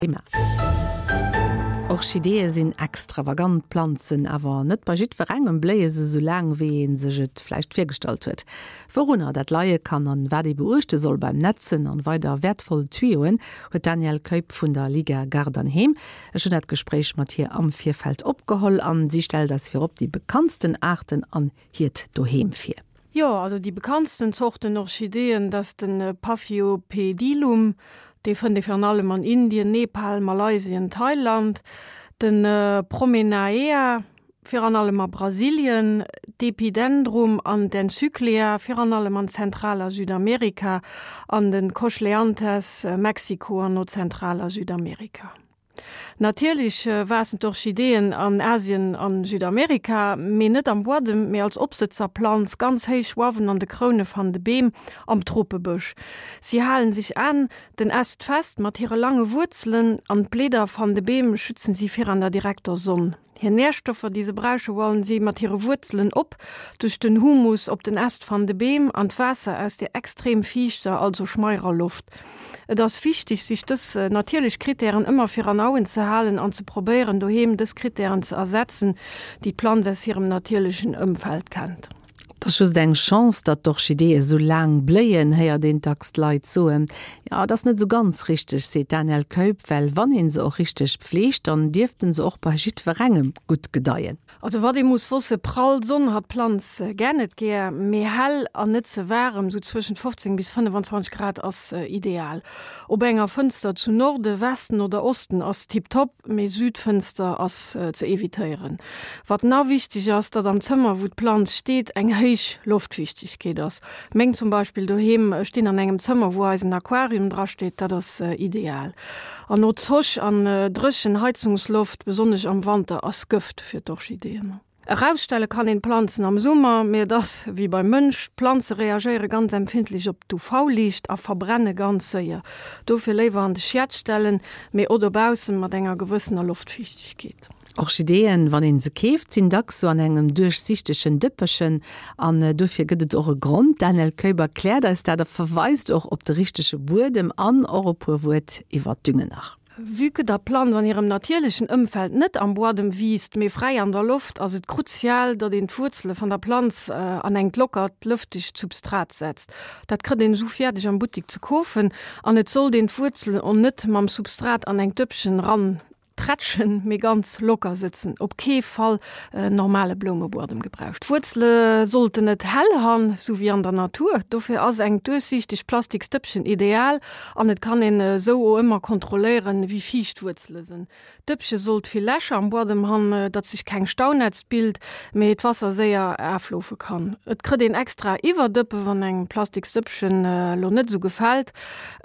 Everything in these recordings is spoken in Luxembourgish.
Thema. Orchideeë sinn extravagant Planzen, awer net bei jiddwerengem bléie se sou laang, wéi ee sech et vläicht virgestallt huet. Wourunner dat leie kann an wat ee beuechte soll beim Netzen an weider wäertvoll Tuyauen, huet d'Danièle Keup vun der Liga Gaart an Heem. Ech hunn dat Gespréich mat hir am Virfeld opgeholl an si stellt eis virop déi bekanntsten Aarten an hiert Doheem vir. Jo, also déi bekanntsten Zorten Orchideeën, dat ass de Paphiopedilum, dee fënnt ee virun allem an Indien, Nepal, Malaysien, Thailand, de Promenaea, virun allem a Brasilien, d'Epidendrum an d'Encyclia, virun allem an Zentral a Südamerika, an de Cochleanthes, Mexiko an no Zentral a Südamerika. Natierlech waassen d'Orchideeën an Asien an Südamerika, mee net am Buadem, mee als Opsëtzerplanz ganz héich uawen an de Kroune van de Beem am Tropebësch. Si halen sech aan den Äst fest mat hire lange Wuerzelen an d'Bleeder van de Beem schützen si viraan der direkter Sonn. Hir Nährstoffer, déi se brauche, hualen si mat hire Wuerzelen op, duerch den Humus op den Äst van de Beem an d'Waasser aus der extrem fiichter, also schmeirer Loft. Et ass wichtig, sich dës natierlech Kritären ëmmer viran Auen ze halen an ze probéieren, doheem dës Kritären ze ersetzen, déi d'Planz aus hirem natierlechen Ëmfeld kennt. Et ass just eng Chance, datt d'Orchideeë sou laang bléien, héiert een dacks d'Leit soen. Jo, et ass net sou ganz richteg, seet d'Danièle Keup, well wann ee se och richteg pfleegt, dann dierfte se och bei jiddwerengem gutt gedeien. Also wat ee muss wosse, prall Sonn hat d'Planz gär net gär, mee hell an net ze waarem, sou zwëschent 15 bis 25 Grad ass ideal. Op enger Fënster zu Norde, Westen oder Osten ass tiptop. Mee Südfënster ass ze evitéieren. Wat na wichteg ass, datt am Zëmmer wou d'Planz steet eng héich Loftfiichtegkeet ass. Meng zum Beispill doheem stinn an engem Zëmmer wou eisen Aquarium dra steet, dat ass ideal. An no Zoch an dréchen Heizungsloft, besonnesch am Wanter, ass Gëft fir d'Orchideeën. Erausstelle kann een d'Planzen am Summer, mee et ass wéi beim Mënsch, d'Planze reagéiere ganz empfindlech op d'UV-Liicht a verbrenne ganz séier. Dofir léiwer an de Schiet stellen, mee o dobaussen mat enger gewëssener Loftfiichtegkeet. Orchideeën, wann een se keeft, sinn dacks sou an engem duerchsichtegen Dëppechen an dofir gëtt et och e Grond. D'Danièle Keup erkläert eis dat a verweist och op de richtege Buedem an och e puer Wuert iwwer d'Düngen nach. Vue que der Planz an hirem natierlechen Ëmfeld net am Buadem wiisst, mee fräi an der Loft, ass et kruzial, datt een d'Wuerzele van der Planz an engt lockert, lëftegt Substrat setzt. Dat krëtt een esou fiärdeg am Buttik ze koofen an et sollt een d'Wuerzelen o net mam Substrat an engt Dëppchen ran tretschen, mee ganz locker sëtzen. Op kee Fall normale Bloumebuadem gebraucht. D'Wuerzele sollten et hell han, sou wéi an der Natur. Dofir ass engt duerchsiichtegt plastiks Dëppchen ideal an et kann een esou o ëmmer kontrolléieren, wéi fiicht d'Wuerzele sënn. D'Dëppche sollt vill Lächer am Buadem han, datt sech keng Staunätzt bild, mee d'Wasser séier aafloofe kann. Et krëtt een extra Iwwerdëppe wann engem plastiks Dëppchen lo net esou gefällt.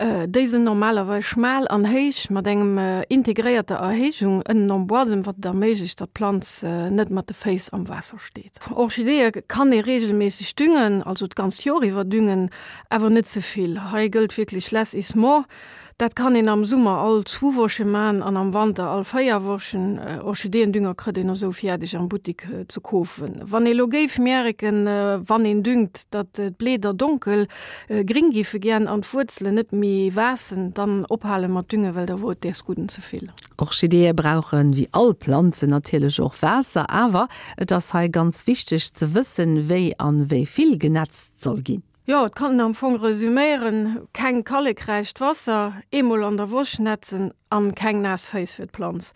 Déi sënn normalerweis schmal an héich mat engem integréierter Erhéijung ënnen am Buadem, wat et erméiglecht, datt d'Planz net mat de Féiss am Waasser steet. Orchideeë kann ee reegelméisseg düngen, also d'ganzt Joer iwwer düngen, awer net ze vill. Hei gëllt wierklech less is more. Dat kann een am Summer all zwu Woche man an am Wanter all 4 Wochen. Orchideendünger krëtt een esou fiärdeg am Buttik ze koofen. Wann ee lo géif mierken, wann een düngt, datt d'Bleeder donkel gring giffe gän an d'Wuerzelen net méi waassen, dann ophale mat düngen, well da wor et däers gudden ze vill. Orchideeë brauchen, wéi all Planzen, natierlech och Waasser, awer et ass hei ganz wichteg ze wëssen, wéi an wéi vill genetzt soll ginn. Jo, et kann en am Fong resüméieren, keng kallekräicht Wasser, eemol an der Woch netzen an keng naass Féiss fir d'Planz.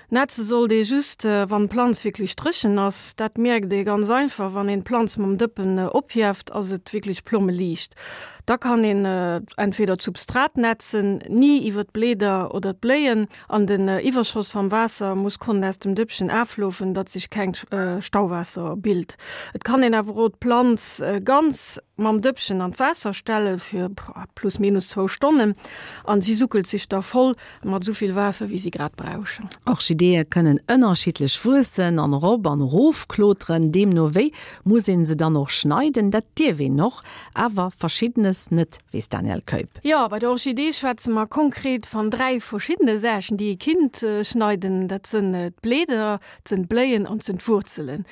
Netze sollt ee just, wann d'Planz wierklech dréchen ass. Dat mierkt ee ganz einfach, wann een d'Planz mam Dëppen ophieft, ass et wierklech plommeliicht. Da kann een entweder d'Substrat netzen, ni iwwer d'Bleeder oder d'Bléien, An den Iwwerschoss vam Waasser muss konnen aus dem Dëppchen aafloofen, datt sich kengt Stauwaasser bild. Et kann een awer o d'Planz ganz mam Dëppchen an d'Waasser stellen fir plus minus zwou Stonnen an si suckelt sich da voll mat souvill Waasser wéi si grad brauschen. Orchideeë kënnen ënnerschiddlech wuessen an erop an erof kloteren. Deemno wéi muss een se dann och schneiden. Dat dierf een och, awer verschiddenes net. Weess d'Danièle Keup. Jo, bei der Orchidee schwätze mer konkret van 3 verschiddene Saachen, déi ee kinnt schneiden. Dat sënn d'Bleeder, 't sënn d'Bléien an 't sënn d'Wurzelen.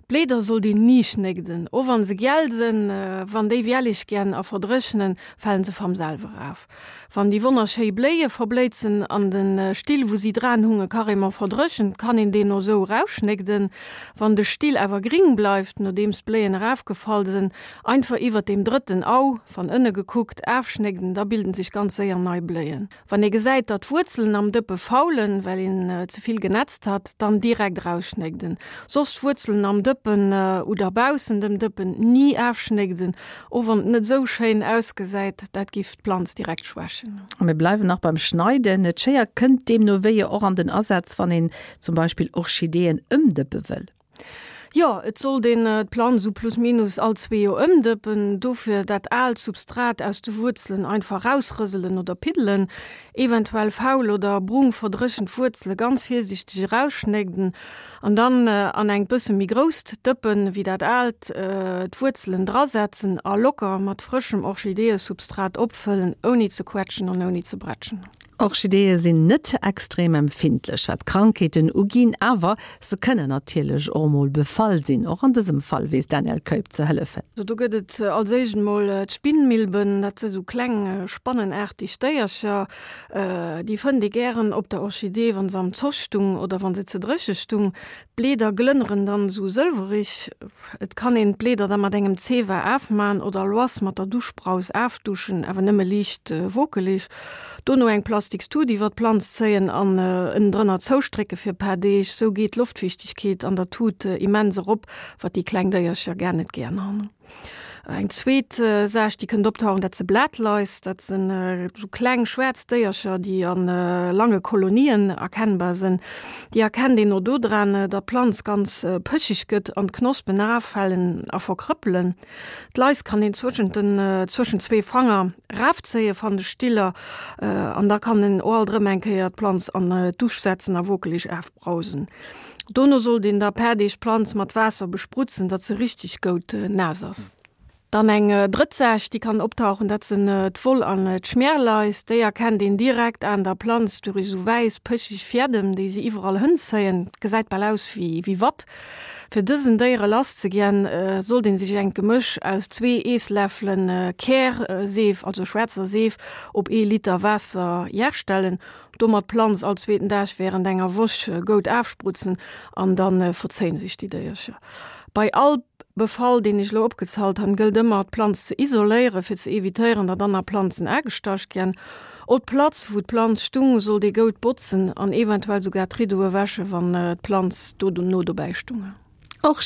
D'Bleeder sollt een ni schnégden, o wann se giel sënn. Wann déi wiellig gän a verdréchnen, falen se vam selwer af. Wann déi wonnerschéi Bléie verbléizen an den Still wou si dran hunge carrément verdréchent, kann een deen o sou rausschnégden. Wann de Still awer gring bleift, nodeems d'Bléien erafgefall sen, einfach iwwert deem drëtten Au, van ënne gekuckt, afschnégden, da bilden sech ganz séier nei Bléien. Wann ee gesäit, datt d'Wuerzelen am Dëppe faulen, well een ze vill genetzt hat, dann direkt erausschnégden. Soss d'Wuerzelen am Dëppen oder baussen dem Dëppen ni afschnégden, och wann et net esou schéin ausgesäit, dat giff d'Planz direkt schwächen. A mir bleiwen nach beim Schneiden. D'Schéier kënnt deemno wéi och an den Asaz, wann een zum Beispill Orchideeën ëmdëppe wëll. Jo, et sollt een d'Planz esou plus minus all zwee Joer ëmdëppen. Dofir dat aalt Substrat aus de Wuerzelen einfach rausrëselen oder piddelen. Eventuell faul oder brung verdréchent Wuerzele ganz virsiichteg erausschnégden an dann an engt bësse méi grousst Dëppen wéi dat aalt d'Wuerzelen drasetzen a locker mat frëschem Orchideeësubstrat opfëllen, ouni ze quetschen an ouni ze bretschen. Orchideeë sinn net extrem empfindlech wat Krankheeten uginn, awer se kënnen natierlech och emol befall sinn. Och an dësem Fall weess d'Danièle Keup ze hëllefen. Do gëtt et als éischt emol d'Spinnmilben, dat si sou kleng spannenaarteg Déiercher. Déi fënnt ee gären op der Orchidee, wa se am Zoch stung oder wa se ze dréche stung. D'Bleeder glënneren dann esou sëlwerig. Et kann een d'Bleeder da mat engem Zewa aafmaan oder loass mat der Duschbraus aafduschen, awer nëmme liicht wokeleg. Dono eng plastiks Tut iwwer d'Planz zéien an ënnendrënner zoustrécke fir e paar Deeg. Sou geet d'Loftfiichtegkeet an der Tut immens erop, wat déi kleng Déiercher gar net gären han. Eng zweet Saach, déi kënnt optauchen, dat se Blatleis. Dat sinn esou kleng schwaarz Déiercher, déi a lange Kolonien erkennbar sinn. Déi erkennt een och dodran, datt d'Planz ganz pëcheg gëtt an d'Knospen eraffalen a verkrëppelen. D'Leis kann een zwëschent den, zwëschent zwee Fanger rafzéie van de Stiller an da kann en och alt erëm eng Kéier d'Planz an d'Dusch setzen a wokeleg afbrausen. Dono sollt een da per Deeg d'Planz mat Waasser besprutzen, datt se richteg goud naass ass. Dann eng drëtt Saach, déi kann optauchen, dat sinn d'Woll an d'Schmierleis. Déi erkennt een direkt aan der Planz durich esou wäiss, pëchig Fiädem, déi se iwwerall hënzéien. Gesäit bal aus wéi Watt. Fir dësen Déiere lass ze giän, sollt een sech engt Gemësch aus zwee Eessläffelen Kärseef, also schwaarzer Seef, op ee Liter Waasser jerstellen. Domat d'Planz all zweeten Dag während enger Woch goud aafsprutzen an dann verzéien sech déi Déiercher. Bei all Befall deen ech lo opgezalt han gëllt ëmmer d'Planz ze isoléieren fir ze evitéieren datt anner Planzen aagestach giän. O d'Platz wou d'Planz stung sollt ee goud botzen an eventuell sougar d'Ridoe wäschen wann d'Planz dono dobäi stung. Och.